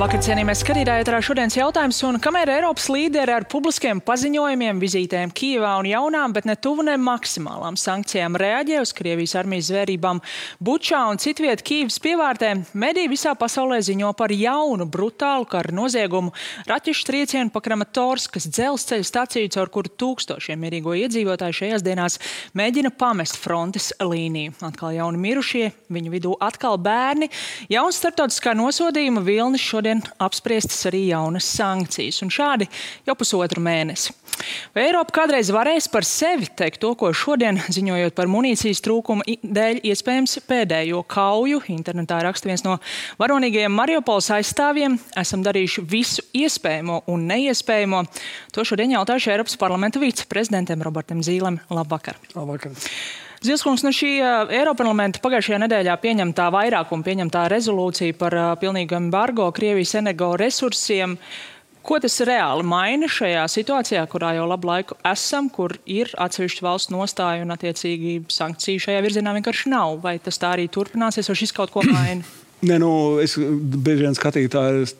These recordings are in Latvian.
Labvakar, cienījamie skatītāji, ēterā šodienas jautājums, un kamēr Eiropas līderi ar publiskiem paziņojumiem, vizītēm Kijevā un jaunām, bet ne tuvu ne maksimālām sankcijām reaģē uz Krievijas armijas zvērībām Bučā un citviet Kijevas pievārtē, mediji visā pasaulē ziņo par jaunu, brutālu karu noziegumu raķešu triecienu pa Kramatorskas dzelzceļa staciju, caur kuru tūkstošiem mierīgo iedzīvotāju šajās dienās mēģina pamest frontes līniju. Atkal jauni mirušie, viņu vidū atkal bērni, jauns starptautiskā nosodījuma vilnis, šodien apspriestas arī jaunas sankcijas, un šādi jau pusotru mēnesi. Vai Eiropa kādreiz varēs par sevi teikt to, ko šodien, ziņojot par munīcijas trūkumu dēļ iespējams pēdējo kauju? Internetā raksta viens no varonīgajiem Mariupoles aizstāvjiem. Esam darījuši visu iespējamo un neiespējamo. To šodien jautājuši Eiropas parlamenta viceprezidentam Robertam Zīlem. Labvakar. Labvakar. Zilskungs, šī Eiroparlamenta pagājušajā nedēļā pieņemtā rezolūcija par pilnīgu embargo Krievijas energoresursiem. Ko tas reāli maina šajā situācijā, kurā jau labu laiku esam, kur ir atsevišķu valstu nostāja un attiecīgi sankciju šajā virzienā vienkārši nav? Vai tas tā arī turpināsies, vai šis kaut ko maina? Nē, es bieži vien skatītāji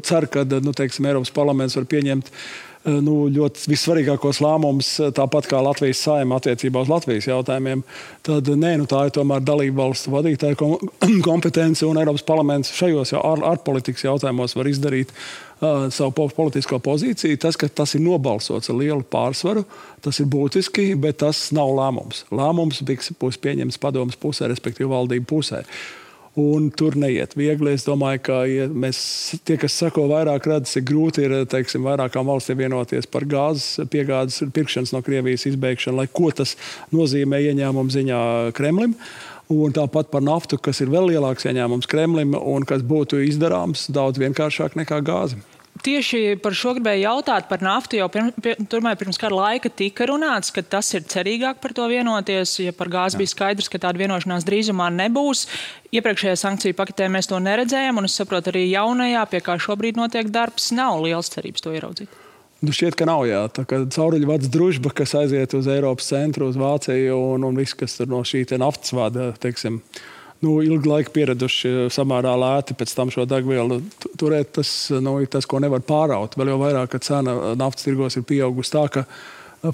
ceru, ka Eiropas parlaments var pieņemt ļoti vissvarīgākos lēmumus, tāpat kā Latvijas Saeima attiecībā uz Latvijas jautājumiem. Tad tā ir tomēr dalību valstu vadītāja kompetence, un Eiropas parlaments šajos ārpolitikas jautājumos var izdarīt savu politisko pozīciju. Tas, ka tas ir nobalsots ar lielu pārsvaru, tas ir būtiski, bet tas nav lēmums. Lēmums būs pieņemts padomas pusē, respektīvi valdību pusē. Un tur neiet viegli. Es domāju, ka tie, kas sako vairāk, redz, cik grūti ir, vairākām valstīm vienoties par gāzes piegādes pirkšanas no Krievijas izbeigšanu, lai ko tas nozīmē ieņēmumu ziņā Kremlim. Un tāpat par naftu, kas ir vēl lielāks ieņēmums Kremlim un kas būtu izdarāms daudz vienkāršāk nekā gāze. Tieši par šo gribēju jautāt par naftu, jau pirms kāda laika tika runāts, ka tas ir cerīgāk par to vienoties, ja par gāzi bija skaidrs, ka tāda vienošanās drīzumā nebūs. Iepriekšējā sankciju paketē mēs to neredzējām, un es saprotu arī jaunajā, pie kā šobrīd notiek darbs, nav liels cerības to ieraudzīt. Šķiet, ka nav, jā. Tā kā cauruļvads družba, kas aiziet uz Eiropas centru, uz Vāciju un viss, kas tur no šī naftas vada, ilgu laiku pieraduši samērā lēti pēc tam šo degvielu turēt, tas ir tas, ko nevar pāraut. Vēl jau vairāk, ka cena naftas tirgos ir pieaugusi tā, ka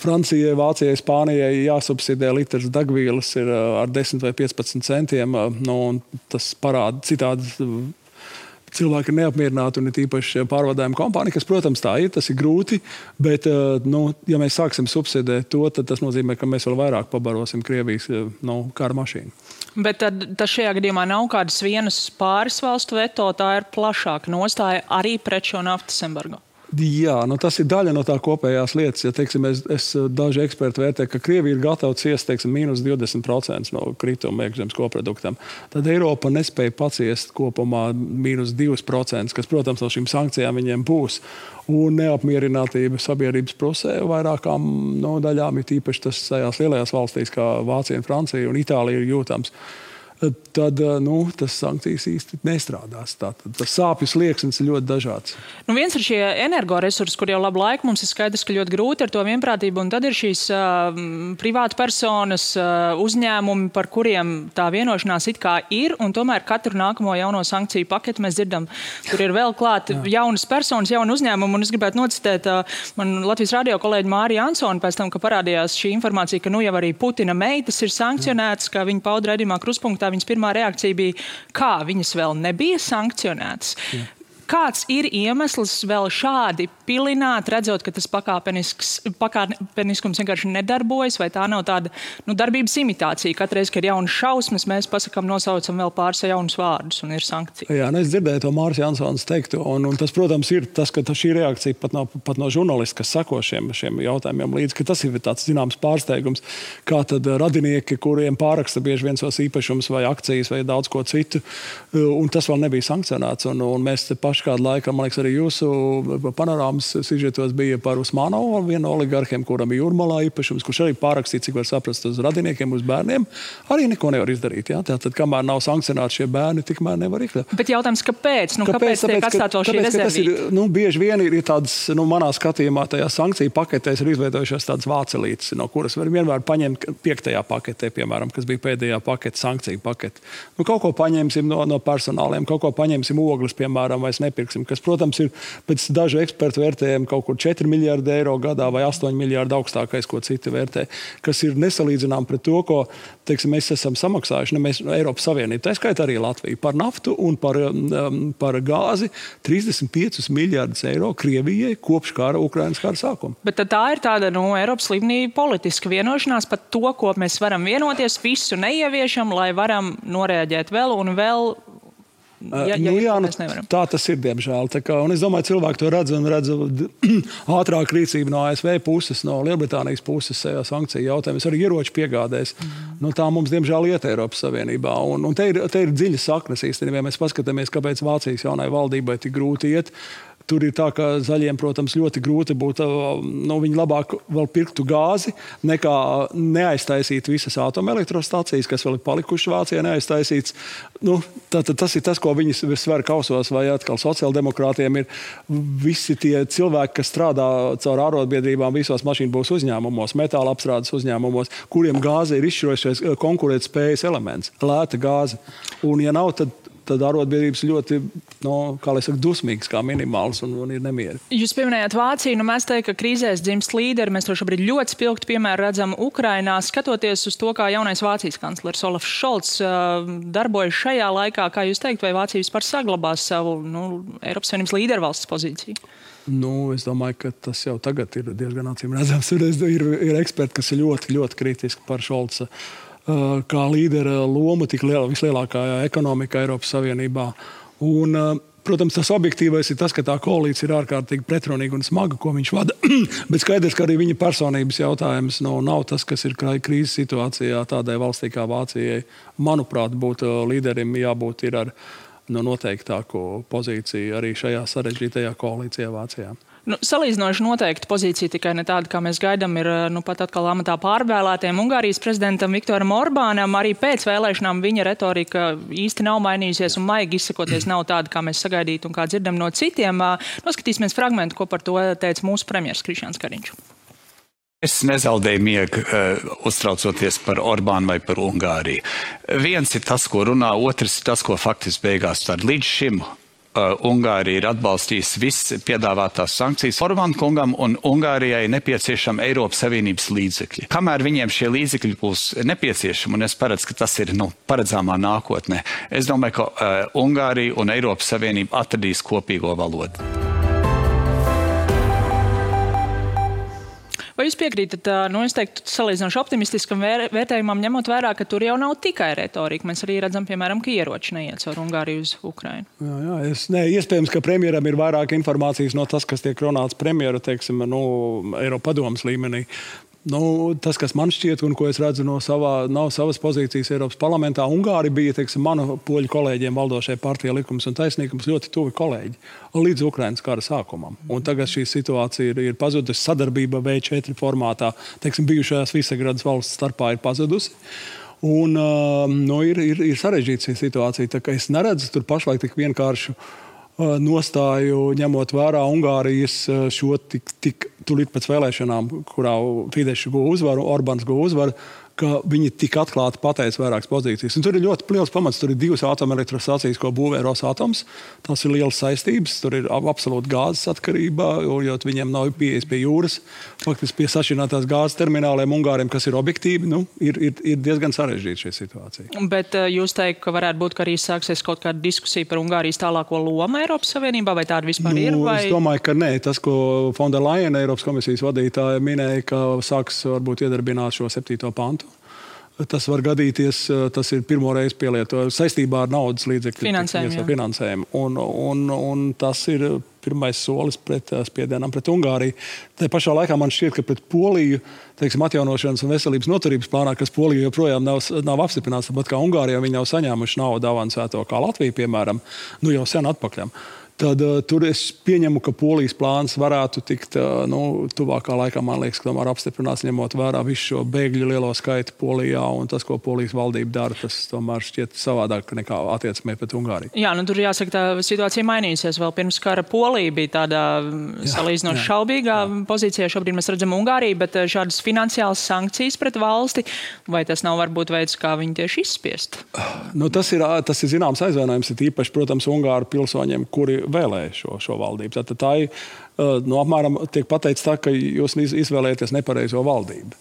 Francijai, Vācijai, Spānijai jāsubsidē litrs degvielas ir ar 10 vai 15 centiem. Un tas parāda citādi. Cilvēki ir neapmierināti un ir īpaši pārvadājuma kompānija, kas, protams, tā ir, tas ir grūti, bet, ja mēs sāksim subsidēt to, tad tas nozīmē, ka mēs vēl vairāk pabarosim Krievijas kara mašīnu. Bet tas šajā gadījumā nav kādas vienas pāris valstu veto, tā ir plašāka nostāja arī pret šo naftas embargo. Jā, tas ir daļa no tā kopējās lietas. Ja, daži eksperti vērtē, ka Krievija ir gatava ciest, mīnus 20% no krituma iekšzemes koproduktam. Tad Eiropa nespēja paciest kopumā mīnus 2%, kas, protams, no šīm sankcijām viņiem būs. Un neapmierinātība sabiedrības pusē vairākām daļām ir tīpaši tas tajās lielajās valstīs, kā Vācija, Francija un Itālija ir jūtams. Tad tas sankcijas īsti nestrādās. Tas sāpju slieksnis ir ļoti dažāds. Viens ir šie energoresursi, kur jau labu laiku mums ir skaidrs, ka ļoti grūti ar to vienprātību, un tad ir šīs privāta personas, uzņēmumi, par kuriem tā vienošanās it kā ir, un tomēr katru nākamo jauno sankciju paketu mēs dzirdam, tur ir vēl klāt jaunas personas, jauni uzņēmumi, un es gribētu nocitēt man Latvijas radio kolēģi Māriju Ansoni pēc tam, ka parādījās šī informācija, ka jau arī Putina meitas ir sankcionētas, kā viņa pauda raidījumā Kruspunktā. Viņas pirmā reakcija bija, kā viņas vēl nebija sankcionētas. Kāds ir iemesls vēl šādi pilināt, redzot, ka tas pakāpeniskums vienkārši nedarbojas, vai tā nav tāda darbības imitācija? Katreiz, kad ir jaunas šausmas, mēs nosaucam vēl pāris jaunus vārdus un ir sankcija. Jā, es dzirdēju to Māris Jansons teiktu, un tas, protams, ir tas, ka šī reakcija pat no žurnālista, kas sako šiem jautājumiem līdzi, ka tas ir tāds zināms pārsteigums, kā tad radinieki, kuriem pāraksta bieži viens savus īpašumus vai akcijas vai daudz ko citu, un tas vēl nebija sankcionēts, un mēs te kādu laiku, man liekas, arī jūsu panorāmas sižetos bija par Usmanovu, vienu no oligarhiem, kuram ir Jūrmalā īpašums, kurš arī pārakstīja, cik var saprast, uz radiniekiem, uz bērniem, arī neko nevar izdarīt. Ja? Tātad, kamēr nav sankcionēti šie bērni, tikmēr nevar iekļaut. Bet jautājums, kāpēc? Kāpēc tiek atstāt vēl šī rezervīta? Bieži vien ir tādas, manā skatījumā, tajā sankciju paketēs ir izveidojušās tādas vācelītes, no kuras var vienmēr paņemt 5. paketē, piemēram, kas bija pēdējā pakete, sankciju pakete. Kaut ko paņemsim no personāliem, kaut ko paņemsim ogles, piemēram, vai nepirksim, kas, protams, ir pēc dažu ekspertu vērtējumu kaut kur 4 miljārdi eiro gadā vai 8 miljārdi augstākais, ko citi vērtē, kas ir nesalīdzinām pret to, ko, teiksim, mēs esam samaksājuši, mēs Eiropas Savienība, tā skaitā arī Latvija, par naftu un par gāzi 35 miljārdus eiro Krievijai kopš Ukrainas kara sākuma. Bet tā ir tāda, Eiropas līmenī politiska vienošanās par to, ko mēs varam vienoties, visu neieviešam, lai varam noreaģēt vēl un vēl. Tā tas ir, diemžēl. Un es domāju, cilvēki to redz ātrāk rīcību no ASV puses, no Lielbritānijas puses sankciju jautājumus, arī ieroču piegādēs. Tā mums, diemžēl, iet Eiropas Savienībā. Un te ir dziļas saknes īstenībā, ja mēs paskatāmies, kāpēc Vācijas jaunai valdībai tik grūti iet. Tur ir tā, ka zaļiem, protams, ļoti grūti būtu, viņi labāk vēl pirktu gāzi, nekā neaiztaisīt visas atomelektrostacijas, kas vēl ir palikušas Vācijā neaiztaisīts. Tas ir tas, ko viņi sver kausos, vai atkal sociāldemokrātiem ir visi tie cilvēki, kas strādā caur ārotbiedrībām visos mašīnbūvas uzņēmumos, metāla apstrādes uzņēmumos, kuriem gāze ir izšķirošais konkurētspējas elements, lēta gāze. Un ja nav, tad arotbiedrības ļoti, dusmīgas kā minimāls un ir nemieri. Jūs pieminējāt Vāciju, mēs teiktu, ka krīzēs dzimst līderi. Mēs to šobrīd ļoti spilgti piemēru redzam Ukrainā. Skatoties uz to, kā jaunais Vācijas kanclers Olafs Šolts darbojas šajā laikā, kā jūs teikt, vai Vācija vispār saglabās savu Eiropas Savienības līdervalsts pozīciju? Es domāju, ka tas jau tagad ir diezgan acīm redzams. Ir eksperti, kas ir ļoti, ļoti kritiski par Šolca kā līdera loma tik vislielākā ekonomika Eiropas Savienībā. Un, protams, tas objektīvais ir tas, ka tā koalīcija ir ārkārtīgi pretrunīga un smaga, ko viņš vada. Bet skaidrs, ka arī viņa personības jautājums nav tas, kas ir krīzes situācijā tādai valstī kā Vācijai. Manuprāt, līderim jābūt ir ar noteiktāko pozīciju arī šajā sarežģītajā koalīcijā Vācijā. Salīdzinoši noteikti pozīcija tikai ne tāda, kā mēs gaidām, ir pat atkal amatā pārvēlētiem Ungārijas prezidentam Viktoram Orbānam. Arī pēc vēlēšanām viņa retorika īsti nav mainījusies un maigi izsakoties nav tāda, kā mēs sagaidītu un kā dzirdam no citiem. Noskatīsimies fragmentu, ko par to teica mūsu premjers Krišjāns Kariņš. Es nezaudēju miegu uztraucoties par Orbānu vai par Ungāriju. Viens ir tas, ko runā, otrs ir tas, ko faktiski beigās tad līdz šim Ungārija ir atbalstījusi visas piedāvātās sankcijas Orbāna kungam un Ungārijai nepieciešama Eiropas Savienības līdzekļi. Kamēr viņiem šie līdzekļi būs nepieciešami, un es paredzu, ka tas ir paredzāmā nākotnē, es domāju, ka Ungārija un Eiropas Savienība atradīs kopīgo valodu. Vai jūs piekrītat, es teiktu, salīdzinoši optimistiskam vērtējumam, ņemot vērā, ka tur jau nav tikai retorika? Mēs arī redzam, piemēram, ka ieroči neiet caur Ungāriju uz Ukrainu. Iespējams, ka premjeram ir vairāk informācijas no tas, kas tiek runāts premjeru, Eiropadomes līmenī. Tas, kas man šķiet, un ko es redzu no savas pozīcijas Eiropas parlamentā, Ungāri bija, manu poļu kolēģiem valdošajai partijai Likums un taisnīgums ļoti tuvi kolēģi līdz Ukrainas kara sākumam. Un tagad šī situācija ir pazudusi, sadarbība V4 formātā, bijušajās Visegradas valsts starpā ir pazudusi. Un ir sarežģīta šī situācija, tā ka es neredzu tur pašlaik tik vienkāršu nostāju, ņemot vērā Ungārijas šo tik tūlīt pēc vēlēšanām, kurā Fidesz guva uzvaru, Orbāns guva uzvaru, ka viņi tik atklāti pateica vairākas pozīcijas. Un tur ir ļoti liels pamats. Tur ir 2 atomelektrostacijas, ko būvē Rosatoms. Tas ir liels saistības. Tur ir absolūti gāzes atkarība, jo viņiem nav pieejas pie jūras. Faktiski pie sašķirinātās gāzes termināliem Ungāriem, kas ir objektīvi, ir diezgan sarežģīta šī situācija. Bet jūs teikt, ka varētu būt, ka arī sāksies kaut kāda diskusija par Ungārijas tālāko lomu Eiropas Savienībā, vai tāda vispār ir? Vai... Es domāju, ka nē. Tas, ko Von der Leyen, Eiropas komisijas vadītāja, minēja, ka sāks varbūt iedarbināt šo 7. pantu. Tas var gadīties, tas ir pirmo reizi pielietojums saistībā ar naudas līdzekļu finansējumu. Un tas ir pirmais solis pret spiedienam pret Ungāriju. Tā pašā laikā man šķiet, ka pret Poliju, atjaunošanas un veselības noturības plānā, kas Poliju joprojām nav apstiprināts, tāpat kā Ungārijā viņi nav saņēmuši naudu avansēto, kā Latvija, piemēram, jau sen atpakaļ. Tad tur es pieņemu, ka Polijas plāns varētu tikt tuvākā laikā, man liekas, ka tomēr apstiprināts, ņemot vērā visu šo bēgļu lielo skaitu Polijā un tas, ko Polijas valdība dara, tas tomēr šķiet savādāk nekā attieksmē pret Ungāriju. Jā, tur jāsaka, tā situācija mainīsies. Vēl pirms kara Polija bija tādā salīdzinoši šaubīgā pozīcijā. Šobrīd mēs redzam Ungāriju, bet šādas finansiālas sankcijas pret valsti, vai tas nav varbūt veids, kā viņi tieši izspiest? Tas ir zināms aizvainojums, ir īpaši, protams, Ungāru pilsoņiem, kuri vēlēja šo valdību. Tātad tā ir, apmēram tiek pateicis tā, ka jūs izvēlēties nepareizo valdību.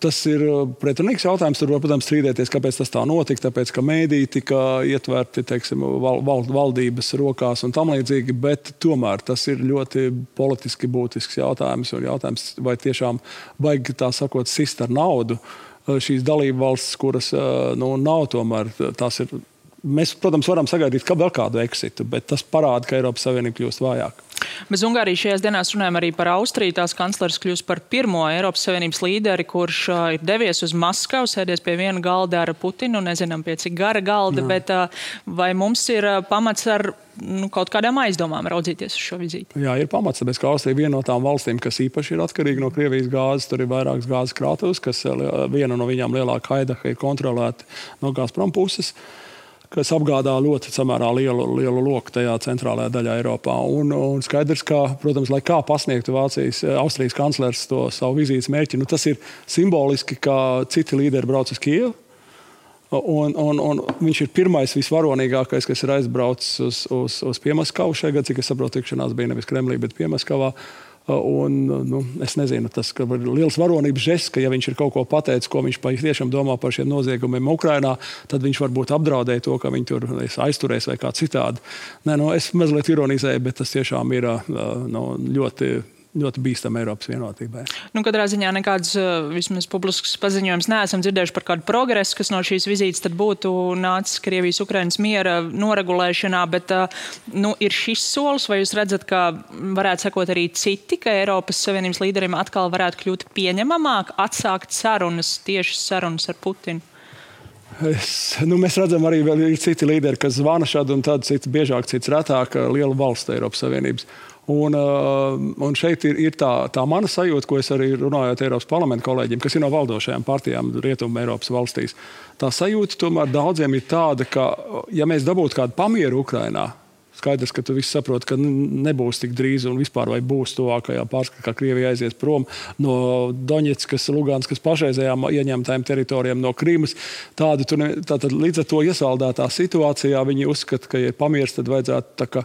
Tas ir pretrunīgs jautājums. Tur var, protams, strīdēties, kāpēc tas tā notika, tāpēc, ka mēdī tika ietverti, teiksim, valdības rokās un tam līdzīgi, bet tomēr tas ir ļoti politiski būtisks jautājums. Un jautājums, vai tiešām vajag, tā sakot, sist ar naudu šīs dalību valstis, kuras nav tomēr, tās ir. Mēs, protams, varam sagaidīt vēl kādu eksitu, bet tas parāda, ka Eiropas Savienība kļūst vājāk. Bez Ungārijas šajās dienās runājam arī par Austriju. Tās kanclers kļūst par pirmo Eiropas Savienības līderi, kurš ir devies uz Maskavu, sēdies pie viena galda ar Putinu, nezinām pie cik gara galda, bet vai mums ir pamats ar kaut kādām aizdomām raudzīties uz šo vizīti? Jā, ir pamats, tāpēc, ka Austrija ir viena no tām valstīm, kas īpaši ir atkarīga no Krievijas gāzes. Tur ir vairākas gāzes krātuves, kas viena no viņām lielāka Haidaha ir kontrolēta no Gazprom puses, kas apgādā ļoti samērā lielu loku tajā centrālajā daļā Eiropā. Un skaidrs, ka, protams, lai kā pasniegtu Austrijas kanclers to savu vizītes mērķi, tas ir simboliski, ka citi līderi brauc uz Kijevu. Un viņš ir pirmais visvaronīgākais, kas ir aizbraucis uz Piemaskavu šajā gadā, cik es saprotu, tikšanās bija nevis Kremlī, bet Piemaskavā. Es nezinu, tas ir liels varonības žests, ka ja viņš ir kaut ko pateicis, ko viņš tiešām domā par šiem noziegumiem Ukrainā, tad viņš varbūt apdraudēja to, ka viņi tur aizturēs vai kā citādi. Es mazliet ironizēju, bet tas tiešām ir ļoti bīstama Eiropas vienotībai. Katrā ziņā nekāds vismaz publisks paziņojums neesam dzirdējuši par kādu progresu, kas no šīs vizītes tad būtu nācis Krievijas-Ukrainas miera noregulēšanā, bet ir šis solis, vai jūs redzat, ka varētu sakot arī citi, ka Eiropas Savienības līderiem atkal varētu kļūt pieņemamāk, atsākt tiešas sarunas ar Putinu? Mēs redzam arī vēl ir citi līderi, kas zvana šādi un tad cits biežāk, cits retāk lielu valstu Eiropas Savienības. Un šeit ir tā mana sajūta, ko es arī runājot Eiropas parlamenta kolēģiem, kas ir no valdošajām partijām Rietumu Eiropas valstīs. Tā sajūta tomēr daudziem ir tāda, ka, ja mēs dabūtu kādu pamieru Ukrainā, skaidrs, ka tu viss saproti, ka nebūs tik drīz un vispār vai būs tuvākajā pārskatā, kā Krievija aizies prom no Doņetskas, Luganskas pašreizējām ieņemtajām teritorijām no Krīmas. Tātad līdz ar to iesaldētā situācijā viņi uzskata, ka, ja ir pamieris, tad vajadzētu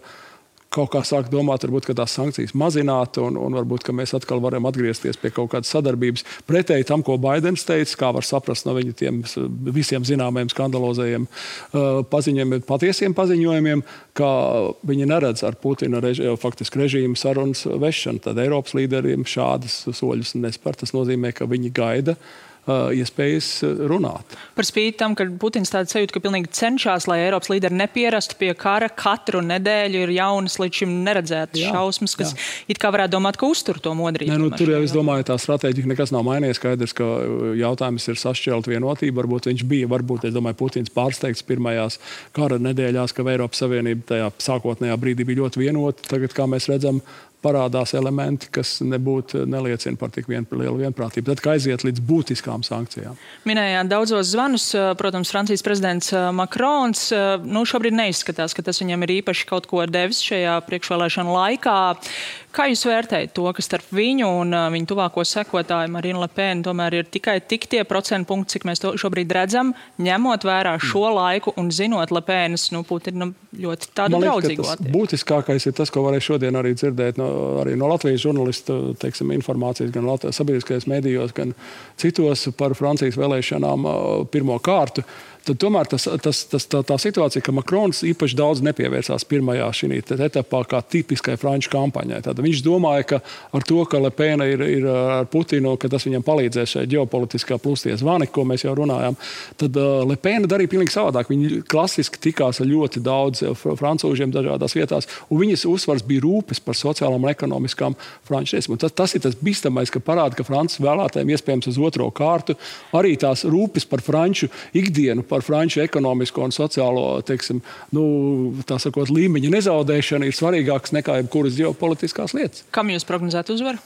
kaut kā sāk domāt, varbūt, ka tās sankcijas mazināt un varbūt, ka mēs atkal varam atgriezties pie kaut kādas sadarbības. Pretēji tam, ko Baidens teica, kā var saprast no viņa tiem visiem zināmajiem skandalozējiem paziņojumiem, patiesiem paziņojumiem, ka viņi neredz ar Putina faktiski režīmu sarunas vešanu. Tad Eiropas līderiem šādas soļus nespēr. Tas nozīmē, ka viņi gaida iespējas runāt. Par spīti tam, ka Putins tāda sajūta, ka pilnīgi cenšas, lai Eiropas līderi nepierastu pie kara, katru nedēļu ir jaunas līdz šim neredzētas šausmas, kas it kā varētu domāt, ka uztur to modrību. Tur jau es domāju, tā stratēģija nekas nav mainījies. Skaidrs, ka jautājums ir sašķelt vienotību. Varbūt, es domāju, Putins pārsteigts pirmajās kara nedēļās, ka Eiropas Savienība tajā sākotnējā brīdī bija ļoti vienota. Tagad, kā mēs redzam, parādās elementi, kas neliecina par tik lielu vienprātību. Tad, kā aiziet līdz būtiskām sankcijām. Minējāt daudzos zvanus, protams, Francijas prezidents Makrons. Šobrīd neizskatās, ka tas viņam ir īpaši kaut ko devis šajā priekšvēlēšanu laikā. Kā jūs vērtējat to, ka starp viņu un viņu tuvāko sekotāju Marinu Le Pen tomēr ir tikai tie procentu punkti, cik mēs to šobrīd redzam, ņemot vērā šo laiku un zinot Le Penas, Putina ļoti tādu draudzīgu attieksmi? Būtiskākais ir tas, ko varēja šodien arī dzirdēt arī no Latvijas žurnalistu, informācijas gan sabiedriskajos medijos, gan citos par Francijas vēlēšanām pirmo kārtu. Tad tomēr tā situācija, ka Makrons īpaši daudz nepievērsās pirmajā šī etapā kā tipiskai franču kampaņai. Tad viņš domāja, ka ar to, ka Le Pen ir ar Putinu, ka tas viņam palīdzēs šai ģeopolitiskā plustie zvani, ko mēs jau runājām, tad Le Pen darīja pilnīgi savādāk. Viņi klasiski tikās ar ļoti daudz francūžiem dažādās vietās, un viņas uzsvars bija rūpes par sociālām un ekonomiskām franču tiesībām. Tas ir tas bīstamais, ka parāda, ka Francijas vēlētājiem iespējams uz otro kārtu arī tās rūpes par franču ikdienu, par franču ekonomisko un sociālo, tā sakot, līmeņa nezaudēšana ir svarīgāks nekā jebkuras ģeopolitiskās lietas. Kam jūs prognozētu uzvaru?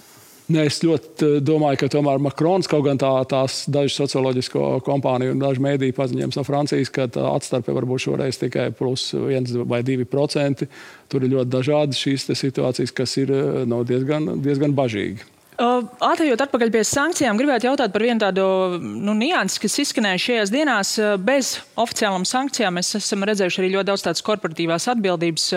Es ļoti domāju, ka tomēr Makrons, kaut gan tās dažas socioloģisko kompāniju un daži mēdīju paziņojums no Francijas, ka tā atstarpe varbūt šoreiz tikai plus 1 vai 2%. Tur ir ļoti dažādas šīs situācijas, kas ir diezgan bažīgi. Ātrējot atpakaļ pie sankcijām, gribētu jautāt par vienu tādu niansi, kas izskanēja šajās dienās. Bez oficiālām sankcijām mēs esam redzējuši arī ļoti daudz tādas korporatīvās atbildības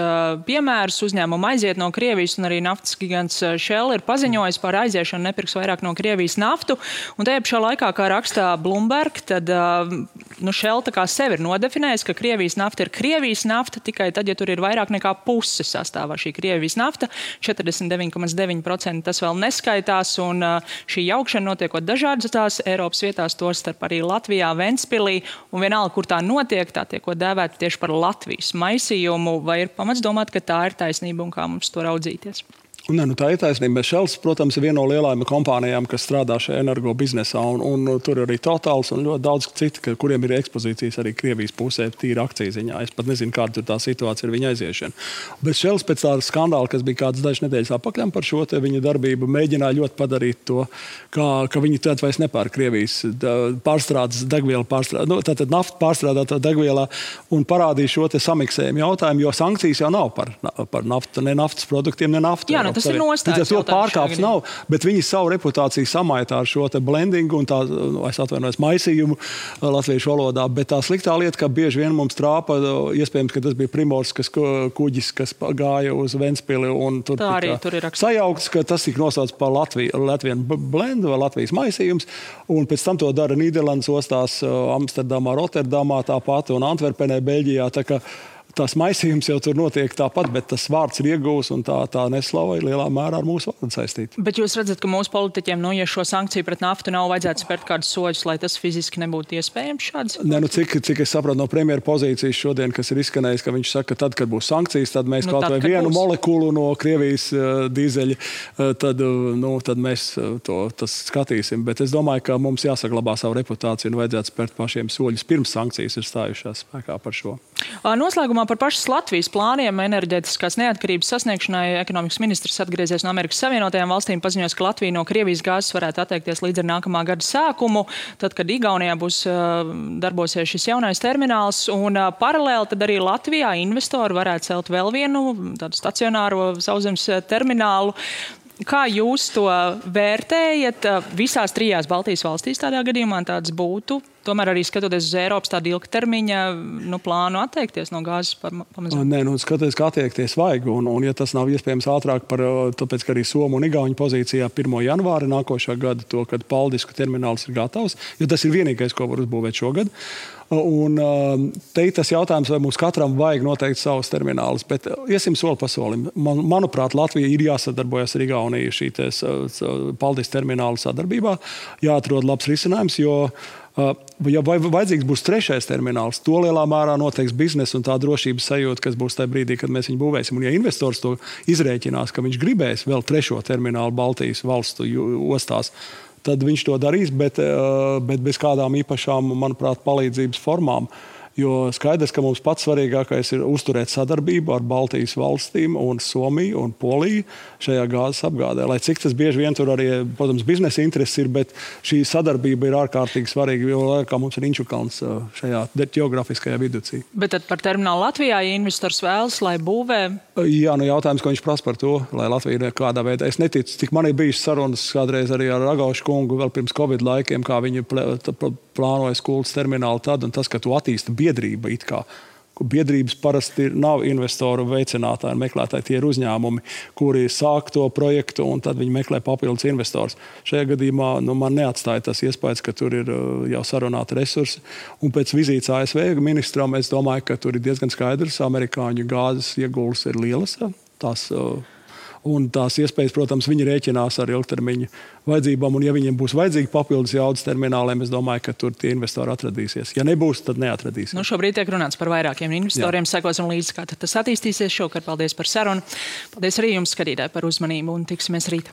piemērus. Uzņēmumu aiziet no Krievijas, un arī naftas gigants Shell ir paziņojis par aiziešanu, nepirks vairāk no Krievijas naftu. Un tajā pašā laikā, kā rakstā Bloomberg, tad Shell tā kā sevi ir nodefinējis, ka Krievijas nafta ir Krievijas nafta, tikai tad, ja tur ir vairāk nekā puse sastāvā šī Krievijas nafta, 49,9% tas vēl neskaitās, un šī jaukšana notiekot dažādās Eiropas vietās, tostarp arī Latvijā, Ventspilī, un vienalga, kur tā notiek, tā tiekot dēvēta tieši par Latvijas maisījumu, vai ir pamats domāt, ka tā ir taisnība un kā mums to raudzīties? Nē, tā ir taisnība. Shells, protams, ir viena no lielajām kompānijām, kas strādā šajā energo biznesā, un tur ir arī Totals un ļoti daudz citi, kuriem ir ekspozīcijas arī Krievijas pusē, tīra akciju ziņā. Es pat nezinu, kāda tur tā situācija ir viņa aiziešana. Bet Shells pēc tāda skandāla, kas bija kādas dažas nedēļas apakaļ par šo te viņa darbību, mēģināja ļoti padarīt to, ka viņi tad vairs nepērk Krievijas pārstrādes degvielu, tātad naftu pārstrādātā degvielā, un parādīja šo te samiksējumu jautājumu, jo sankcijas jau nav par naftu, ne naftas produktiem, ne naftu. Jā, tas ir nostājums. To pārkāps nav, bet viņi savu reputāciju samaitā ar šo te blendingu un tā, es atvainojos, maisījumu latviešu valodā, bet tā sliktā lieta, ka bieži vien mums trāpa, iespējams, ka tas bija Primorskas kuģis, kas gāja uz Ventspili, un tur tika sajaukts, ka tas tika nosaucts par Latvienu blendu vai Latvijas maisījums, un pēc tam to dara Nīderlandes ostās, Amsterdamā, Rotterdamā tāpat un Antverpenē, Beļģijā, tā ka tās maisījums jau tur notiek tāpat, bet tas vārds ir iegūs un tā neslava ir lielā mērā ar mūsu vārdu saistīta. Bet jūs redzat, ka mūsu politiķiem, ja šo sankciju pret naftu nav vajadzētu spērt kādus soļus, lai tas fiziski nebūtu iespējams šāds? Nē, cik es sapratu no premjera pozīcijas šodien, kas ir izskanējis, ka viņš saka, ka tad, kad būs sankcijas, tad mēs kaut vai vienu molekulu no Krievijas dīzeļa, tad mēs tas skatīsim. Bet es domāju, ka mums jāsaglabā savu reputāciju un vajadzētu spērt pašiem soļus pirms sankcijas ir stājušās spēkā par šo. Noslēgumā par pašas Latvijas plāniem enerģētiskās neatkarības sasniegšanai ekonomikas ministrs atgriezies no Amerikas Savienotajām valstīm, paziņos, ka Latvija no Krievijas gāzes varētu atteikties līdz ar nākamā gada sākumu, tad, kad Igaunijā būs darbosies šis jaunais termināls, un paralēli tad arī Latvijā investori varētu celt vēl vienu tādu stacionāro sauszemes terminālu. Kā jūs to vērtējat? Visās trijās Baltijas valstīs tādā gadījumā tāds būtu. Tomēr arī skatoties uz Eiropas tādu ilgtermiņa plānu atteikties no gāzes pamazām. Nē, skatoties, kā attiekties vajag. Un ja tas nav iespējams ātrāk, tāpēc, ka arī Somu un Igauņu pozīcijā 1. janvāra nākošā gada to, kad Paldisku termināls ir gatavs, jo tas ir vienīgais, ko var uzbūvēt šogad. Un te ir tas jautājums, vai mums katram vajag noteikti savus terminālus, bet iesim soli pa solim. Manuprāt, Latvija ir jāsadarbojas ar Igauniju šī Paldis termināla sadarbībā, jāatrod labs risinājums, jo ja vajadzīgs būs trešais termināls, to lielā mērā noteiks biznesa un tā drošības sajūta, kas būs tajā brīdī, kad mēs viņu būvēsim. Un ja investors to izrēķinās, ka viņš gribēs vēl trešo terminālu Baltijas valstu ostās, tad viņš to darīs, bet bez kādām īpašām, manuprāt, palīdzības formām. Jo skaidrs, ka mums pats svarīgākais ir uzturēt sadarbību ar Baltijas valstīm un Somiju un Poliju šajā gāzes apgādē. Lai cik tas bieži vien tur arī, protams, biznesa intereses ir, bet šī sadarbība ir ārkārtīgi svarīga, jo kā mums ir Inčukalns šajā ģeografiskajā viducī. Bet tad par terminālu Latvijā, ja investors vēlas, lai būvē? Jā, jautājums, ko viņš prasa par to, lai Latvija kādā veidā. Es neticu, tik man ir bijušas sarunas kādreiz arī ar Ragaušu kungu vēl pirms Covid laikiem, kā viņi plānoja Kultas terminālu tad, un tas, ka tu attīsti biedrība it kā. Biedrības parasti nav investoru veicinātāji un meklētāji. Tie ir uzņēmumi, kuri sāk to projektu un tad viņi meklē papildus investors. Šajā gadījumā man neatstāja tas iespējas, ka tur ir jau sarunāti resursi. Un pēc vizītes ASV ministram es domāju, ka tur ir diezgan skaidrs. Amerikāņu gāzes ieguldījums ir lielas. Un tās iespējas, protams, viņi rēķinās ar ilgtermiņa vajadzībām. Un ja viņiem būs vajadzīgi papildus jaudas termināliem, es domāju, ka tur tie investori atradīsies. Ja nebūs, tad neatradīsies. Šobrīd tiek runāts par vairākiem investoriem. Sekosim līdzi, kā tas attīstīsies. Šovakar paldies par sarunu. Paldies arī jums, skatītāji, par uzmanību un tiksimies rīt.